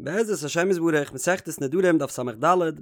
בעזרת השם יתברך, מסכת נדרים דף ס"ד,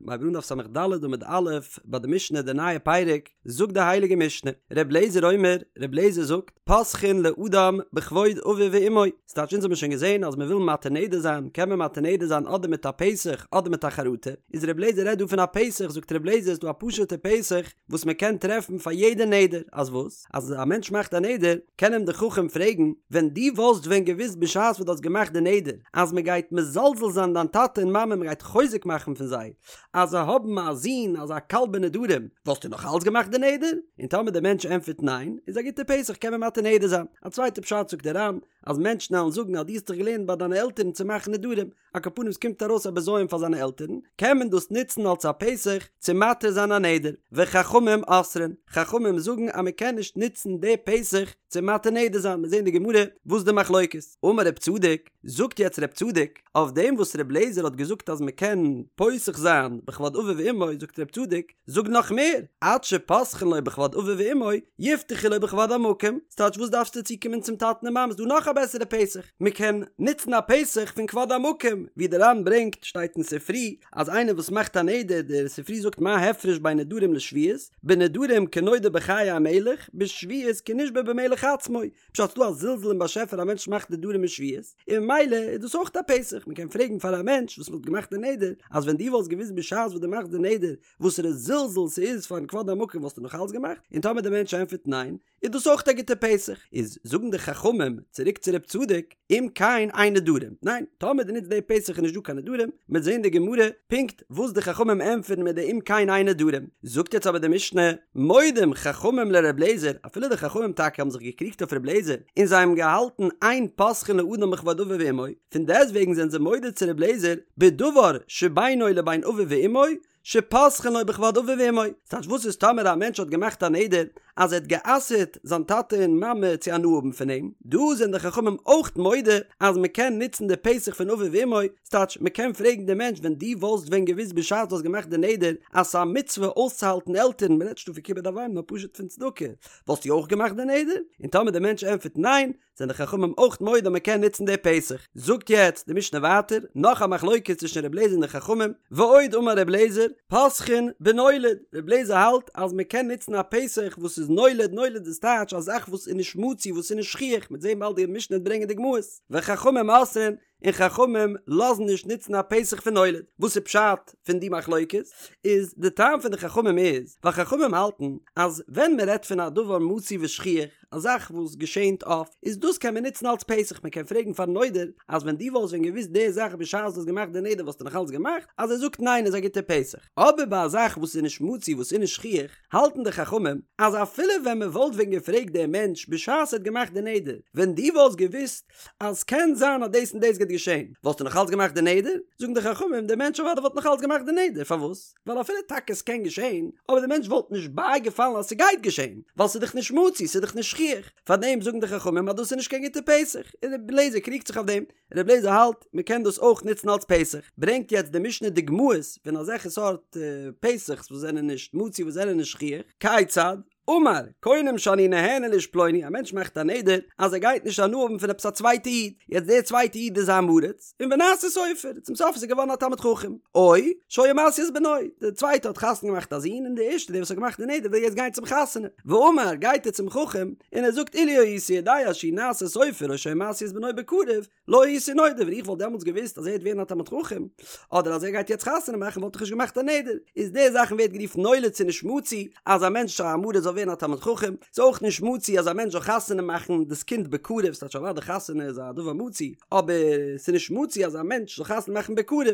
מ'הייבט אן דף ס"ד עמוד א', ביי די משנה די נייע פרק, זאגט די הייליגע משנה, ר' לעזער אומר, ר' לעזער זאגט, פותחין לאדם בכבוד אביו ואמו, ס'טייטש אונז האבן שוין געזען אז מ'וויל מתיר נדר זיין, קען מען מתיר נדר זיין אדער מיט א פתח אדער מיט א חרטה, איז ר' לעזער רעדט דא פון א פתח, זאגט ר' לעזער ס'דא א פשוט'ע פתח וואס מ'קען טרעפן פאר יעדע נדר, אז וואס? אז א מענטש מאכט א נדר, קען אים די חכם פרעגן, ווען דו וואלסט ווען געוואוסט בשעת וואס דו האסט געמאכט די נדר, אז מען גייט מזלזל זיין דיין טאטע און מאמע, מען גייט חוזק מאכן פון זיי, אז זיי האבן א זון אזא קל בנדרים, וואלסטו נאך אלץ געמאכט די נדר? און טאמער דער מענטש ענטפערט ניין, איז א גוטע פתח קען מען מתיר נדר זיין. א צווייטע פשט זאגט דער ר"ן, אז מענטשן וועלן זאגן אז דו האסט דיך געלערנט ביי דיינע עלטערן צו מאכן נדרים, על כל פנים ס'קומט ארויס א בזיון פאר זיינע עלטערן, קען מען דאס נוצן אלס א פתח צו מתיר זיין א נדר, וחכמים אוסרין, חכמים זאגן אז מען קען נישט נוצן די פתח צו מתיר נדר זיין, מיר זעהן די גמרא וואס די מחלוקת. אמר רב צדוק, זאגט יעצט רב צדוק, אויף דעם וואס רב לעזער האט געזאגט אז מען קען פותח זיין בכבוד אביו ואמו, זאגט רב צדוק, זאג נאך מער, עד שפותחין לו בכבוד אביו ואמו, יפתחו לו בכבוד המקום, ס'טייטש וואס דארפסטו צוקומען צום טאטן און מאמען, ס'דא נאך א בעסערע פתח, מ'קען נוצן א פתח פון כבוד המקום, ווי דער ר"ן ברענגט, שטייט אין ספרי, אז איינער וואס מאכט א נדר, דער ספרי זאגט מה הפרש בין נדרים לשבועות, בנדרים כנודר בחיי המלך, בשבועות כנשבע במלך עצמו, פשט ס'דא א זלזול אין באשעפער א מענטש מאכט נדרים און שבועות, און ממילא איז דאס אויך א פתח, מ'קען פרעגן פאר א מענטש וואס וואלט געמאכט די נדר, אז ווען דו וואלסט געוואוסט בשעת וואס דו מאכסט די נדר וואסערע זלזול ס'איז פארן כבוד המקום וואלסטו נאך אלץ געמאכט? און טאמער די מענטש ענטפערט ניין, איז דאס אויך א גוטע פתח. איז זאגן די חכמים צוריק צו רב צדוק, אם כן אין נדרים, ניין, טאמער דו נוצט די פתח איז נישט דא קיין נדרים, מ'וועט זען די גמרא פונקט וואס די חכמים ענטפערן מיט די אם כן אין נדרים. זאגט יעצט אבער די משנה, מודים חכמים לר' לעזער, אפילו די חכמים טאקע האבן זיך געקריגט אויף ר' לעזער, און זיי האבן געהאלטן אין פותחין לאדם בכבוד אביו ואמו, פון דעסטוועגן זענען זיי מודה צו ר' לעזער בדבר שבינו לבין אביו ואמו, שפותחין לו בכבוד אביו ואמו, ס'טייטש וואס איז טאמער א מענטש האט געמאכט א נדר אז ער האט גע'אסר'ט זיין טאטע און מאמע צו הנאה האבן פון אים, דא זענען די חכמים אויך מודה אז מ'קען נוצן די פתח פון אביו ואמו, ס'טייטש מ'קען פרעגן די מענטש ווען דו וואלסט ווען געוואוסט בשעת דו האסט געמאכט די נדר אז ס'איז א מצוה אויסצוהאלטן עלטערן, מ'רעדט נישט דא פון כיבוד אב ואם נאר פשוט פון צדקה, וואלסטו אויך געמאכט די נדר? און טאמער די מענטש ענטפערט ניין, זענען די חכמים אויך מודה אז מען קען נוצן די פתח. זאגט יעצט די משנה ווייטער, נאך א מחלוקת צווישן ר' לעזער און די חכמים, ועוד אמר ר' לעזער, פותחין בנולד, ר' לעזער האלט אז מען קען נוצן א פתח וואס איז נולד, נולד איז טייטש א זאך וואס איז נישט מצוי וואס איז נישט שכיח, מ'וועט זען באלד די משנה וועט ברענגען דוגמאות, וחכמים אוסרין, און חכמים לאזן נישט נוצן א פתח פון נולד. וואס איז פשט פון די מחלוקת? איז די טעם פון די חכמים איז, ווייל חכמים האלטן אז ווען מען רעדט פון א דבר מצוי ושכיח, א זאך וואס געשענט אפט, איז דאס קען מען נוצן אלס פתח, מען קען פרעגן פארן נודר אז ווען דו וואלסט ווען געוואוסט די זאך בשעת דו האסט געמאכט די נדר וואלסטו נאך אלץ געמאכט, אז ער זאגט ניין איז א גוטע פתח. אבער ביי א זאך וואס איז נישט מצוי וואס איז נישט שכיח, האלטן די חכמים אז אפילו ווען מען וואלט ווען געפרעגט דעם מענטש בשעת ער האט געמאכט די נדר, ווען דו וואלסט געוואוסט אז ס'קען זיין אז דאס און דאס גייט געשען, וואלסטו נאך אלץ געמאכט די נדר? זאגן די חכמים, דער מענטש אוודאי וואלט נאך אלץ געמאכט די נדר, פארוואס? ווייל אפילו טאקע ס'קען געשען, אבער דער מענטש וואלט נישט בייגעפאלן אז ס'גייט געשען, ווייל ס'איז דאך נישט מצוי, ס'איז דאך נישט שכיח, פארדעם זאגן די חכמים אז דאס איז נישט קיין גוטע פתח, און רבי אליעזר קריגט זיך אויף דעם, רבי אליעזר האלט מ'קען דאס אויך נוצן אלץ פתח, ברענגט יעצט די משנה דוגמאות פון אזעלכע סארט פתח'ס וואס זענען נישט מצוי וואס זענען נישט שכיח, כיצד? אמר, קונם שאני נהנה לאיש פלוני, א מענטש מאכט א נדר אז ער גייט נישט הנאה האבן פון עפעס א צווייטע איד, יעצט דער צווייטע איד איז א עם הארץ, און ונעשה סופר, צום סוף איז ער געווארן א תלמיד חכם, או שהיה משיא את בנו, דער צווייטע האט חתונה געמאכט א זון און דער ערשטער דער וואס האט געמאכט די נדר וויל יעצט גיין צום חתונה, ואמר, גייט ער צום חכם און ער זאגט אילו הייתי יודע שהוא נעשה סופר או שהיה משיא את בנו בקרוב, לא הייתי נודר, ווען איך וואלט דעמאלטס געוואוסט אז ער וועט ווערן א תלמיד חכם, אדער אז ער גייט יעצט חתונה מאכן וואלט איך נישט געמאכט א נדר. איז די זאכן ווערט גערופן נולד ס'איז נישט מצוי אז א מענטש א עם הארץ זאל ווערן א תלמיד חכם, ס'איז אויך נישט מצוי אז א מענטש זאל חתונה מאכן דאס קינד בקרוב, ס'טייטש אוודאי חתונה איז א דבר מצוי, אבער ס'איז נישט מצוי אז א מענטש זאל חתונה מאכן בקרוב,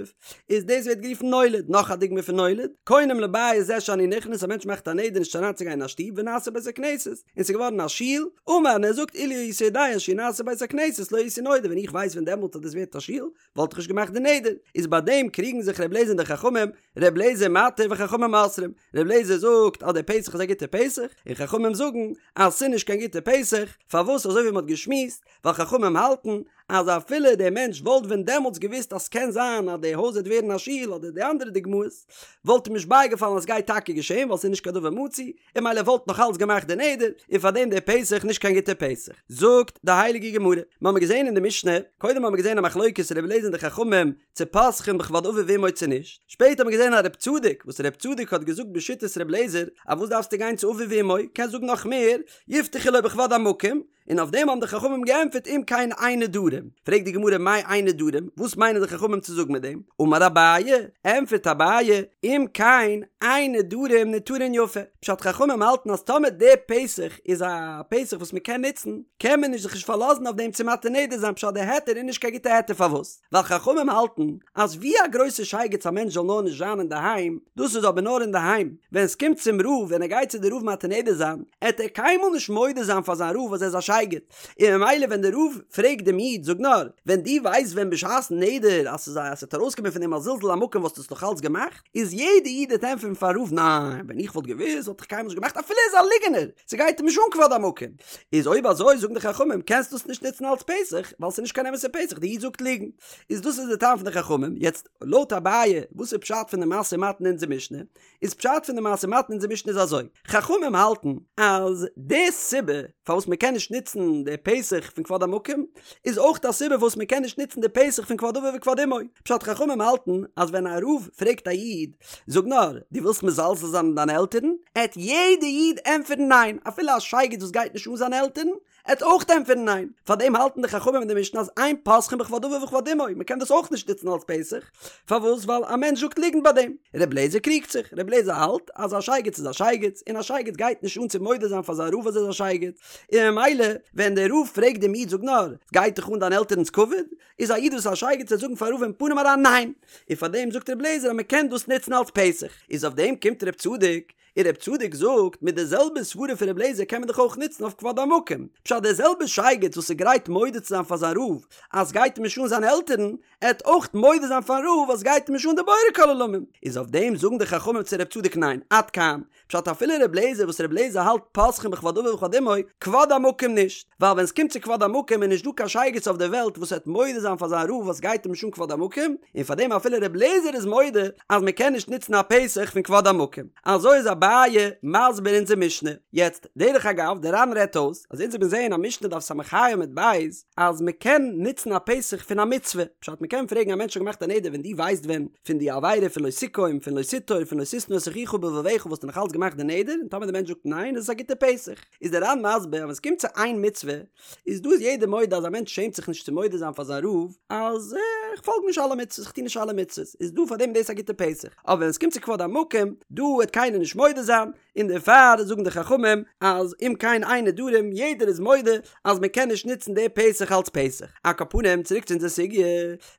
איז דאס ווערט גערופן נולד. נאך א דוגמא פון נולד, קונם לבית זה שאני נכנס, א מענטש מאכט א נדר נישט אריינצוגיין אין א שטוב ונעשה בית הכנסת, און ס'איז געווארן א שול, אמר און ער זאגט אילו הייתי יודע שהוא נעשה בית הכנסת לא הייתי נודר ווען איך ווייס ווען דעמאלט אז דאס ווערט א שול וואלט איך נישט געמאכט די נדר, איז ביי דעם קריגן זיך ר' לעזער און די חכמים, ר' לעזער מתיר וחכמים אוסרים, ר' לעזער זאגט אז דער פתח איז א גוטער פתח, און חכמים זאגן אז ס'איז נישט קיין גוטער פתח, פארוואס אזוי ווי מ'האט געשמועסט, ווייל חכמים האלטן. אז אפילו דער מענטש וואלט ווען דעמאלטס געוואוסט אז ס'קען זיין אז די הויז וועט ווערן א שול אדער די אנדערע דוגמאות, וואלט אים נישט בייגעפאלן אז סגייט טאקע געשען ווייל ס'איז נישט קיין דבר מצוי, און ממילא וואלט נאך אלץ געמאכט די נדר, און פארדעם דער פתח נישט קיין גוטער פתח. זאגט די הייליגע גמרא, מ'האמיר געזען אין די משנה, קודם האמיר געזען א מחלוקת רבי אליעזר און די חכמים צו פותחין בכבוד אביו ואמו צו נישט, שפעטער האמיר געזען א רב צדוק, וואס רב צדוק האט געזאגט בשיטת רבי אליעזר, אז וואס דארפסטו גיין צו אביו ואמו, קענסט זאגן נאך מער, יפתחו לו בכבוד המקום, און אויף דעם האבן די חכמים געענטפערט אם כן אין נדרים. פרעגט די גמרא מאי אין נדרים, וואס מיינען די חכמים צו זאגן מיט דעם? אמר אביי, ענטפערט אביי, אם כן אין נדרים ניתרין יפה, פשט חכמים האלטן אז טאמער די פתח איז א פתח וואס מען קען נוצן, קען מען נישט זיך נישט פארלאזן אויף דעם צו מתיר נדר זיין פשט די היתר איז נישט קיין גוטע היתר פארוואס? ווייל חכמים האלטן אז ווי א גרויסע שייגעץ א מענטש זאל נאר נישט זיין אינדערהיים, דאס איז אבער נאר אינדערהיים, ווען עס קומט צום רב ווען ער גייט צו די רב מתיר נדר זיין, עט ער קיינמאל נישט מודה זיין פאר זיין רב אז ער איז א שייגעץ, און ממילא ווען די רב פרעגט דעם איד זאג נאר, ווען דו ווייסט ווען בשעת'ן נדר אז ס'איז א אז ס'וועט ארויסקומען פון דעם א זלזול המקום וואלסטו עס נאך אלץ געמאכט? איז יעדע איד וועט ענטפערן פארן רב ניין, ווען איך וואלט געוואוסט וואלט איך קיינמאל נישט געמאכט אפילו ער איז א ליגענער, ס'גייט אים נישט אן כבוד המקום. איז אויב אזוי זאגן די חכמים קענסט דאס נישט נוצן אלץ פתח ווייל ס'איז נישט קיין אמת'ע פתח די איד זאגט ליגן. איז דאס איז די טעם פון די חכמים. יעצט לויט אביי וואס איז פשט פון די משא ומתן אין אונזער משנה? איז פשט פון די משא ומתן אין אונזער משנה איז אזוי, חכמים האלטן אז די סיבה פארוואס מען קען נישט נוצן די פתח פון כבוד המקום איז אויך א סיבה פארוואס מען קען נישט נוצן די פתח פון כבוד אביו וכבוד אמו. פשט חכמים האלטן אז ווען א רב פרעגט א איד זאג נאר, דו ווילסט מזלזל זיין אין דיינע עלטערן? עט יעדע איד ענטפערן ניין, אפילו א שייגעץ וואס גייט נישט אן זיינע עלטערן, עט אויך ענטפערן ניין. פארדעם האלטן די חכמים אין די משנה אז אין פותחין בכבוד אביו וכבוד אמו, מען קען דאס אויך נישט נוצן אלס פתח, פארוואס? ווייל א מענטש זאגט ליגנט ביי דעם. ר' לעזער קריגט זיך, ר' לעזער האלט אז א שייגעץ איז א שייגעץ, און א שייגעץ גייט נישט אן צו מודה זיין פאר זיין רב אז ער איז א שייגעץ, און ממילא ווען דער רב פרעגט דעם איד זאג נאר, גייט דיך אן דיין עלטערנס כבוד? איז א איד וואס איז א שייגעץ וועט זאגן פארן רב אין פנים אריין ניין! און פאר דעם זאגט ר' לעזער אז מען קען דאס נוצן אלס פתח. איז אויף דעם קומט ר' צדוק, און ר' צדוק זאגט, מיט די זעלבע סברה פון ר' לעזער קען מען דאך אויך נוצן אויף כבוד המקום. פשט דער זעלבער שייגעץ וואס איז גרייט מודה צו זיין פאר זיין רב אז סגייט אים נישט אן זיינע עלטערן, עט אויך מודה זיין פארן רב אז סגייט אים נישט אן די בורא כל עולמים. איז אויף דעם זאגן די חכמים צו ר' צדוק ניין, עד כאן. פשט אפילו ר' לעזער וואס ר' לעזער האלט פותחין בכבוד אביו וכבוד אמו, כבוד המקום נישט, ווייל ווען סקומט צו כבוד המקום איז נישט דא קיין שייגעץ אויף די וועלט וואס וועט מודה זיין פאר זיין רב אז סגייט אים נישט אן כבוד המקום, און פאר דעם אפילו ר' לעזער איז מודה אז מען קען נישט נוצן א פתח פון כבוד המקום. אזוי איז אביי מסביר אונזער משנה. יעצט, דרך אגב, דער ר"ן רעדט אויס אז אונז האבן געזעהן א משנה דף ס"ה עמוד ב' אז מען קען נוצן א פתח פון א מצוה, פשט מען קען פרעגן א מענטש האט געמאכט א נדר ווען דו ווייסט ווען פון די עבירה פון לא תקום פון לא תטור פון לא תשנא את אחיך בלבבך וואלסטו נאך אלץ געמאכט די נדר און טאמער די מענטש זאגט ניין איז עס א גוטע פתח איז דער ר"ן מסביר אז ווען עס קומט צו איין מצוה איז דא איז יעדער מודה אז א מענטש שעמט זיך נישט צו מודה זיין פאר זיין רב אז איך פאלג נישט אלע מצוות איך טו נישט אלע מצוות איז דא פאר דעם איז דאס א גוטע פתח אבער ווען עס קומט צו כבוד המקום דא וועט קיינער נישט מודה זיין און דערפאר זאגן די חכמים אז אם כן אין נדרים יעדער איז מודה אז מען קען נישט נוצן די פתח אלץ פתח. על כל פנים צוריק צו אונזער סוגיא,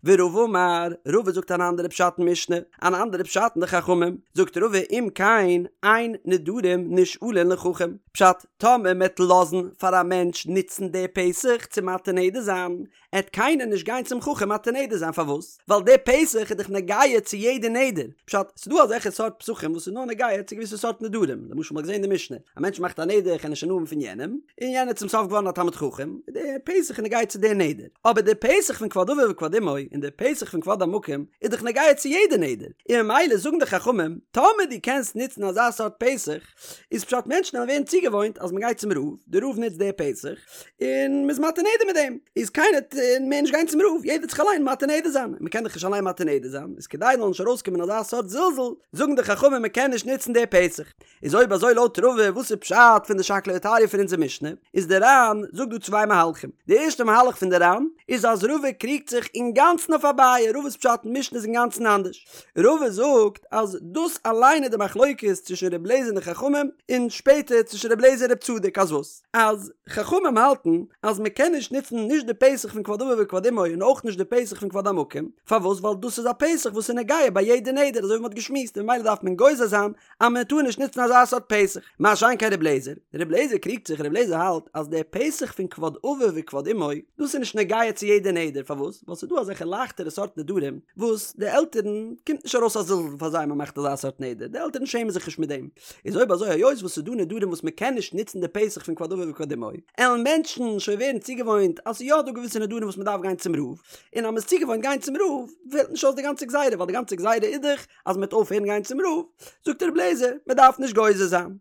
ורבא אמר, רבא זאגט אן אנדערע פשט אין משנה, אן אנדערע פשט אין די חכמים, זאגט רבא אם כן אין נדרים נשאלין לחכם, פשט, טאמער מען וועט לאזן פאר א מענטש נוצן די פתח צו מתיר נדר זיין, עט קיינער נישט גיין צום חכם מתיר נדר זיין פארוואס? ווייל די פתח איז דאך נוגע צו יעדע נדר, פשט, ס'דא אזעלכע סארט פתחים וואס איז נאר נוגע צו געוויסע סארט נדרים, למשל מ'האט געזען אין די משנה, א מענטש מאכט א נדר איך וועל נישט הנאה האבן פון יענעם, און יענער איז צום סוף געווארן א תלמיד חכם, די פתח איז נוגע צו די נדר, אבער די פתח פון כבוד אביו וכבוד אמו און די פתח פון כבוד המקום איז דאך נוגע צו יעדע נדר, און ממילא זאגן די חכמים, טאמער דו קענסט נוצן אזא סארט פתח, איז פשט מענטשן וועלן ווערן צוגעוואוינט אז מ'גייט צום רב, די רב נוצט די פתח, און מ'איז מתיר נדר מיט דעם, איז קיינער וועט מער נישט גיין צום רב, יעדער וועט זיך אליין מתיר נדר זיין, און מ'קען דאך נישט אליין מתיר נדר זיין, איז כדי זאל נישט ארויסקומען אזא סארט זלזול, זאגן די חכמים מ'קען נישט נוצן די פתח. איז אויב אזוי לויט רבא וואס איז פשט פון די שקלא וטריא פון אונזער משנה, איז די ר"ן זאגט דא צוויי מהלכים, די ערשטע מהלך פון די ר"ן איז אז רבא קריגט זיך אינגאנצן אויף אביי, רבא'ס פשט אין משנה איז אינגאנצן אנדערש, רבא זאגט אז דאס אליין איז די מחלוקת צווישן ר' לעזער און די חכמים, און שפעטער צווישן ר' לעזער און ר' צדוק, אז וואס? אז חכמים האלטן אז מען קען נישט נוצן נישט די פתח פון כבוד אביו וכבוד אמו און אויך נישט די פתח פון כבוד המקום, פארוואס? ווייל דאס איז א פתח וואס איז נוגע ביי יעדע נדר אזוי ווי מען האט געשמועסט און ממילא דארף מען גוזר זיין אז מען טאר נישט נוצן אזא סארט פתח. מה שאין כן ר' לעזער, ר' לעזער קריגט זיך, ר' לעזער האלט אז דער פתח פון כבוד אביו וכבוד אמו, דאס איז נישט נוגע צו יעדע נדר, פארוואס? ווייל ס'איז דא אזעלכע לייכטערע סארט נדרים וואס די עלטערן קומט נישט ארויס א זלזול פאר זיי מען מאכט אזא סארט נדר, די עלטערן שעמען זיך נישט מיט דעם. איז אויב אזוי היות וואס ס'איז דא נדרים וואס מען קען נישט נוצן די פתח פון כבוד אביו וכבוד אמו, עלן מענטשן שוין ווערן צוגעוואוינט אז ס'איז יא דא געוויסע נדרים. נדרים וואס מען דארף גיין צום רב, און אז מען איז צוגעוואוינט גיין צום רב פעלט נישט אויס די גאנצע גזירה ווייל די גאנצע גזירה איז דאך אז מען וועט אויפהערן גיין צום רב, זאגט ר' לעזער מען דארף נישט גוזר זיין.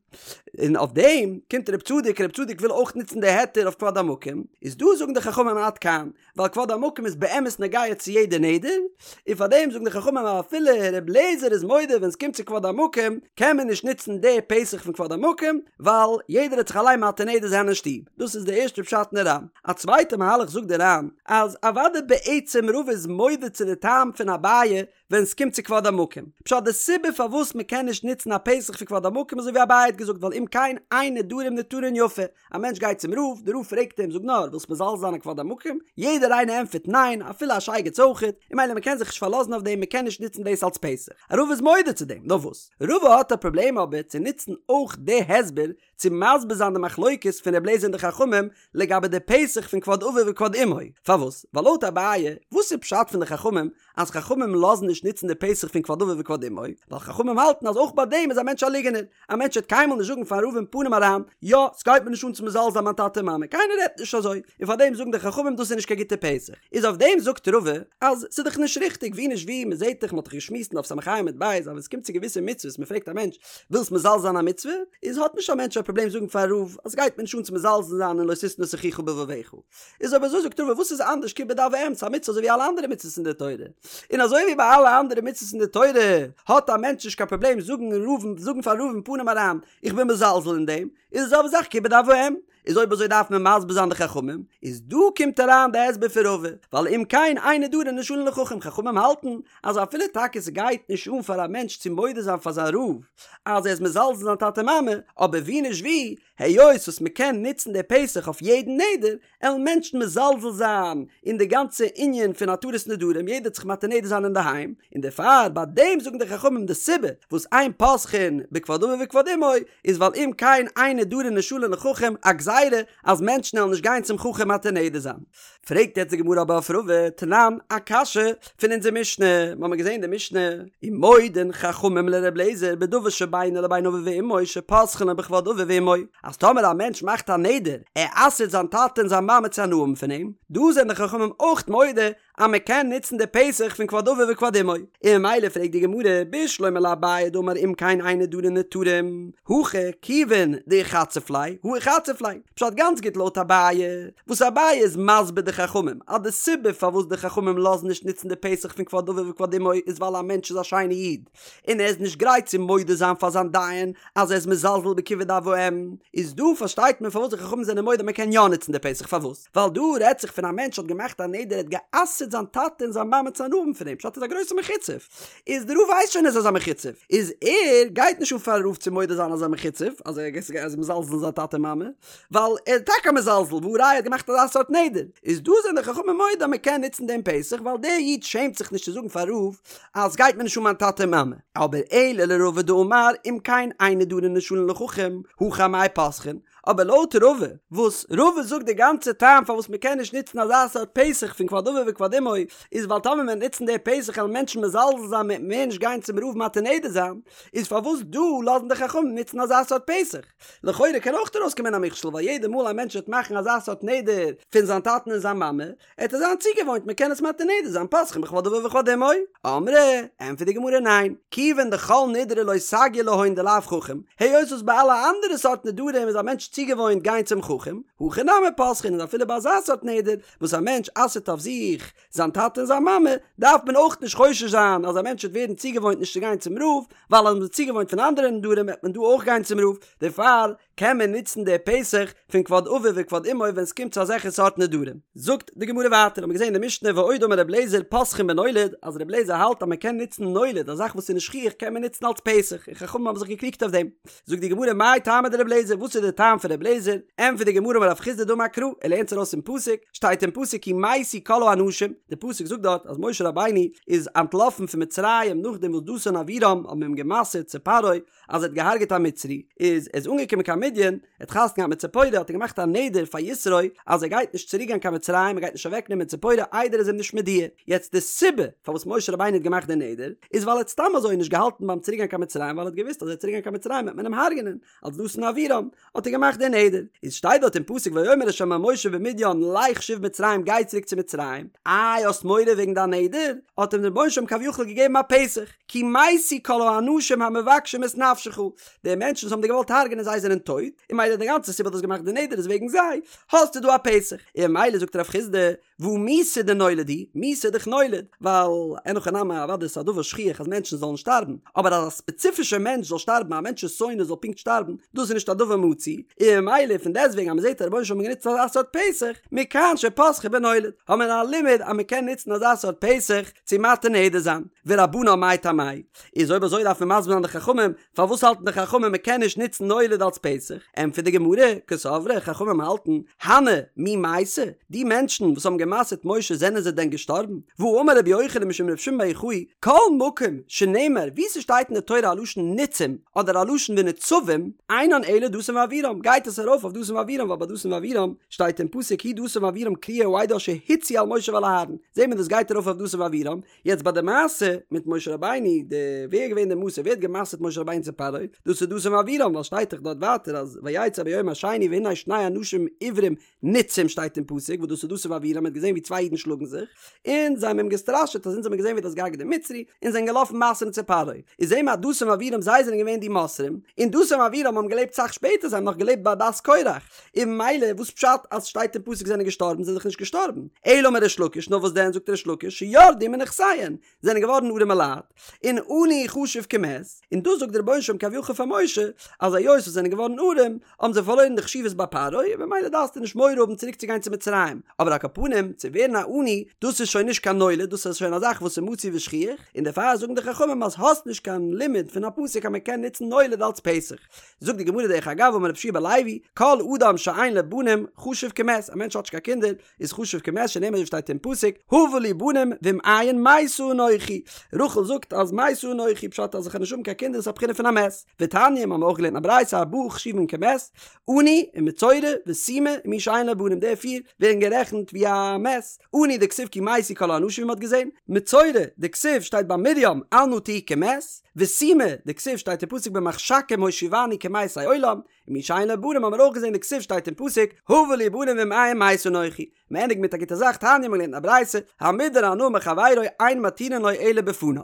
און אויף דעם קומט רב צדוק, רב צדוק וויל אויך נוצן די היתר אויף כבוד המקום, איז דא זאגן די חכמים עד כאן, ווייל כבוד המקום איז באמת נוגע צו יעדע נדר, און פאר דעם זאגן די חכמים אז אפילו ר' לעזער איז מודה ווען עס קומט צו כבוד המקום קען מען נישט נוצן די פתח פון כבוד המקום, ווייל יעדער וועט זיך אליין מתיר נדר זיין אין שטוב, דאס איז די ערשטע פשט אין די ר"ן. א צווייטע מהלך זאגט די ר"ן, אז אוודאי בעצם רבא איז מודה צו די טעם פון אביי ווען סקומט צו כבוד המקום. פשט די סיבה פארוואס מקען נישט נוצן א פתח פון כבוד המקום אזוי ווי אביי האט געזאגט ווייל אם כן אין נדרים נתרין יפה, א מענטש גייט צום רב, די רב פרעגט אים זאג נאר ווילסט מזלזל זיין אין כבוד המקום? יעדער איינער ענטפערט ניין אפילו א שייגעץ אויכעט, און ממילא מקען זיך נישט פארלאזן אויף דעם מקען נישט נוצן דאס אלס פתח. רבא איז מודה צו דעם, נאר וואס? רבא האט א פראבלעם אבער צו נוצן אויך די הסבר צו מסביר זיין די מחלוקת פון ר' לעזער און די חכמים לגבי די פתח פון כבוד אביו וכבוד אמו, פארוואס? ווייל לויט אביי, וואס איז פשט פון די חכמים אז חכמים לאזן נישט נוצן די פתח פון כבוד אביו וכבוד אמו, ווייל חכמים האלטן אז אויך ביי דעם איז א מענטש א ליגענער, א מענטש וועט קיינמאל נישט זאגן פארן רב אין פנים אריין, יא, ס'גייט מיר נישט אן צו מזלזל זיין מיין טאטע און מאמע, קיינער רעדט נישט אזוי, און פאר דעם זאגן די חכמים דאס איז נישט קיין גוטע פתח. איז אויף דעם זאגט רבא אז ס'איז דאך נישט ריכטיג, ווי נישט ווי, מ'זעט דאך, מ'האט דאך געשמועסט אין דף ס"ה עמוד ב' אז ווען ס'קומט צו געוויסע מצוות, מ'פרעגט א מענטש, ווילסט מזלזל זיין א מצוה? איז האט נישט א מענטש א פראבלעם זאגן פארן רב אז ס'גייט מיר נישט אן צו מזלזל זיין אין לא תשנא את אחיך בלבבך. איז אויב אזוי זאגט רבא וואס איז אנדערש כיבוד אב ואם ס'איז א מצוה אזוי ווי אלע אנדערע מצוות אין די תורה. און אזוי ווי ביי אלע אנדערע מצוות אין די תורה האט א מענטש נישט קיין פראבלעם זאגן רב זאגן פארן רב אין פנים אריין איך בין מזלזל אין דעם, איז די זעלבע זאך כיבוד אב ואם. איז אויב אזוי דארף מען מסביר זיין די חכמים, איז דא קומט אריין די הסבר פון רבא, ווייל אם כן אין נדרים נשאלין לחכם, חכמים האלטן אז אפילו טאקע ס'גייט נישט אן פאר א מענטש צו מודה זיין פאר זיין רב אז ער איז מזלזל זיין טאטע מאמע, אבער ווי נישט ווי, היות וואס מ'קען נוצן די פתח אויף יעדן נדר, עלן מענטשן מזלזל זיין אין די גאנצע ענין פון התרת נדרים, יעדער וועט זיך מתיר נדר זיין אינדערהיים, און דערפאר ביי דעם זאגן די חכמים די סיבה וואס אין פותחין בכבוד אביו וכבוד אמו איז ווייל אם כן אין נדרים נשאלין לחכם, א גזירה אז מענטשן עלן נישט גיין צום חכם מתיר נדר זיין. פרעגט יעצט די גמרא אבער אויף רבא, תנן, א קשיא פון אונזער משנה, מיר האבן געזען אין די משנה, ומודין חכמים לר' אליעזר בדבר שבינו לבין אביו ואמו שפותחין לו בכבוד אביו ואמו, אז טאמער א מענטש מאכט א נדר, ער אסר'ט זיין טאטע און זיין מאמע צו הנאה האבן פון אים, דא זענען די חכמים אויך מודה אז מען קען נוצן די פתח פון כבוד אביו וכבוד אמו, און ממילא פרעגט די גמרא, בשלמא לאביי דאמר אם כן אין נדרים נתרים, הכא כיוון דאיחצף ליה, הא איחצף ליה, פשט גאנץ גוט לויט אביי, וואס אביי איז מסביר די חכמים אז די סיבה פארוואס די חכמים לאזן נישט נוצן די פתח פון כבוד אביו וכבוד אמו איז ווייל א מענטש איז א שיינע איד און ער איז נישט גרייט צו מודה זיין פאר זיין דיין אז ער איז מזלזל בכיבוד אב ואם, איז דא פארשטייט מען פארוואס די חכמים זענען מודה מען קען יא נוצן די פתח פארוואס? ווייל דא רעדט זיך פון א מענטש האט געמאכט א נדר ער האט גע'אסר'ט זיין טאטע און זיין מאמע צו הנאה האבן פון אים פשט איז א גרויסע מחוצף איז די רב ווייסט שוין אז ער איז א מחוצף איז ער גייט נישט אן פארן רב צו מודה זיין אז ער איז א מחוצף אז ער איז מזלזל אין זיין טאטע און מאמע ווייל ער איז טאקע א מזלזל והא ראיה ער האט געמאכט אזא סארט נדר איז דא זענען די חכמים מודה אז מען קען נוצן דעם פתח ווייל דער איד שעמט זיך נישט צו זאגן פארן רב אז סגייט מיר נישט אן מיין טאטע און מאמע אבער אלא לרבא דאמר אם כן אין נדרים נשאלין לחכם הכא אמאי פותחין אבער לויט רבא, וואס רבא זאגט די גאנצע טעם פארוואס מען קען נישט נוצן אזא סארט פתח פון כבוד אביו וכבוד אמו, איז ווייל טאמער מען וועט נוצן די פתח וועלן מענטשן מזלזל זיין מ'וועט מער נישט גיין צום רב מתיר נדר זיין, איז פארוואס דא לאזן די חכמים נוצן אזא סארט פתח? לכאורה קען אויך ארויסקומען א מכשול ווייל יעדע מאל א מענטש וועט מאכן אזא סארט נדר פון זיין טאטן און זיין מאמע, עט ער זיין צוגעוואוינט מען קען עס מתיר נדר זיין פותחין בכבוד אביו וכבוד אמו. אמרי, ענטפערט די גמרא ניין, כיוון דכל נדרי לא סגי להון דלאו חכם, היות וואס ביי אלע אנדערע סארט נדרים איז א מענטש צוגעוואוינט גיין צום חכם, הכא נמי פותחין איז אפילו ביי אזא סארט נדר וואס א מענטש אסר'ט אויף זיך זיין טאטע און זיין מאמע, דארף מען אויך נישט חושש זיין אז א מענטש וועט ווערן צוגעוואוינט נישט צו גיין צום רב, ווייל אז מען איז צוגעוואוינט פון אנדערע נדרים וועט מען דא אויך גיין צום רב, דערפאר קען מען נוצן די פתח פון כבוד אביו וכבוד אמו ווען ס'קומט צו אזעלכע סארט נדרים. זאגט די גמרא ווייטער, האט מען געזען אין די משנה ועוד אמר רבי אליעזר פותחין בנולד, אז רבי אליעזר האלט אז מען קען נוצן נולד, א זאך וואס איז נישט שכיח קען מען נוצן אלס פתח, און חכמים האבן זיך געקריגט אויף דעם. זאגט די גמרא מאי טעמא דרבי אליעזר, וואס איז די טעם פון רבי אליעזר? ענטפערט די גמרא אמר רב חסדא דאמר קרא, ער לערנט עס ארויס פון פסוק, שטייט אין פסוק כי מתו כל האנשים, די פסוק זאגט דארט אז משה רבינו איז אנטלאפן פון מצרים נאכדעם וואס דתן און אבירם האבן אים גע'מסר'ט צו פרעה, אז ער האט געהארגעט א מצרי, איז ער איז אנגעקומען קיין מדין, ער האט חתונה געהאט מיט ציפורה האט ער געמאכט א נדר פאר יתרו אז ער גייט נישט צוריק גיין קיין מצרים ער גייט נישט אוועק נעמען ציפורה איידער ער איז אים נישט מודיע, יעצט די סיבה פארוואס משה רבינו האט געמאכט די נדר איז ווייל ער האט סתם אזוי נישט געהאלטן ביים צוריק גיין קיין מצרים ווייל ער האט געוואוסט אז ער וועט צוריק גיין קיין מצרים וועט מען אים הרג'נען אלס דתן ואבירם האט ער געמאכט די נדר, איז שטייט דארט אין פסוק ויאמר ה' אל משה במדין לך שוב מצרים גיי צוריק צו מצרים, איי האסט מורא וועגן דיין נדר? האט אים דער רבונו של עולם כביכול געגעבן א פתח, כי מתו כל האנשים המבקשים את נפשך, די מענטשן וואס האבן דיר געוואלט הרג'נען זיי זענען טויט, און ממילא די גאנצע סיבה האסט געמאכט די נדר איז וועגן זיי, האסטו דא א פתח, און ממילא זאגט רב חסדא, והא מיתה דנולד היא, מיתה איז דאך נולד, ווייל אין הכי נמי אוודאי ס'איז א דבר שכיח אז מענטשן זאלן שטארבן, אבער אז א ספעציפישער מענטש זאל שטארבן, א מענטש'ס שונא זאל פונקט שטארבן, דאס איז נישט א דבר מצוי, און ממילא פון דעסטוועגן אז מ'זעט אז רבונו של עולם האט גענוצט אזא סארט פתח, מכאן שפתחו בנולד, האט מען א לימוד אז מ'קען נוצן אזא סארט פתח צו מתיר נדר זיין, ורבנן מאי טעמייהו, איז אויב אזוי דארף מען מסביר זיין די חכמים פארוואס האלטן די חכמים מען קען נישט נוצן נולד אלס פתח? ענטפערט די גמרא, קסברי, חכמים האלטן, הני מי מייתי, די מענטשן וואס האבן גע'מסר'ט משה זענען זיי דען געשטארבן? והאמר רבי יוחנן משום רבי שמעון בר יוחאי, כל מקום שנאמר וואו ס'שטייט אין די תורה א לשון ניצים אדער א לשון ונצבים, אינן אלא דתן ואבירם, גייט עס ארויף אויף דתן ואבירם ווייל ביי דתן ואבירם שטייט אין פסוק הוא דתן ואבירם קריאי העדה אשר הצו על משה ועל אהרן, זעהט מען דאס גייט ארויף אויף דתן ואבירם, יעצט ביי די מעשה מיט משה רבינו, די ווער איז געווען די מוסר, ווער האט גע'מסר'ט משה רבינו צו פרעה, דאס איז דתן ואבירם, ווייל שטייט דאך דארט ווייטער אז ויצא ביום השני והנה שני אנשים עברים ניצים שטייט אין פסוק וואס דאס איז דתן ואבירם האט געזען ווי צוויי אידן שלאגן זיך, און זיי האבן אים געסטראשעט אז אונז האבן געזען ווי דו האסט געהארגעט דעם מצרי, און זענען געלאפן מסר'ן צו פרעה, איז זעהן מיר אז דתן ואבירם זיי זענען געווען די מוסרים, און דתן ואבירם האבן געלעבט סאך שפעטער זיי האבן נאך געלעבט ביי עדת קורח, און ממילא וואס פשט אז שטייט אין פסוק זענען געשטארבן זענען דאך נישט געשטארבן, אלא אמר ריש לקיש נאר וואס דען זאגט ריש לקיש שירדו מנכסיהן זענען געווארן ארעמע לייט, און עני חשוב כמת, און דאס זאגט דער רבונו של עולם כביכול פאר משה אז היות זיי זענען געווארן ארעם האבן זיי פארלוירן די חשיבות ביי פרעה און ממילא דארפסטו נישט מורא האבן צוריק צו גיין צו מצרים, אבער על כל פנים צו ווערן א עני דאס איז שוין נישט קיין נולד דאס איז שוין א זאך וואס איז מצוי ושכיח, און דערפאר זאגן די חכמים אז האסט נישט קיין לימוד פון א פסוק אז מען קען נוצן נולד אלץ פתח. זאגט די גמרא דרך אגב אמר רבי יהושע בן לוי, כל אדם שאין לו בנים חשוב כמת, א מענטש האט נישט קיין קינדער איז חשוב כמת שנאמר ווי שטייט אין פסוק הבה לי בנים ואם אין מתה אנכי, רחל זאגט אז מתה אנכי פשט אז איך וועל נישט האבן קיין קינדער איז א בחינה פון א מת, ותניא מיר האבן אויך געלערנט א ברייתא ארבעה חשובין כמת, עני ומצורע וסומא ומי שאין לו בנים די פיר ווערן גערעכנט ווי א מת, עני דכתיב כי מתו כל האנשים ווי מ'האט געזען, מצורע דכתיב שטייט ביי מרים אל נא תהי כמת, וסומא דכתיב שטייט אין פסוק במחשכים הושיבני כמתי עולם, ומי שאין לו בנים האבן מיר אויך געזען דכתיב שטייט אין פסוק הבה לי בנים ואם אין מתה אנכי. מ'ענדיגט מיט א גוטע זאך תניא מ'האט געלערנט א ברייתא, המודר הנאה מחבירו אין מתירין לו אלא בפניו.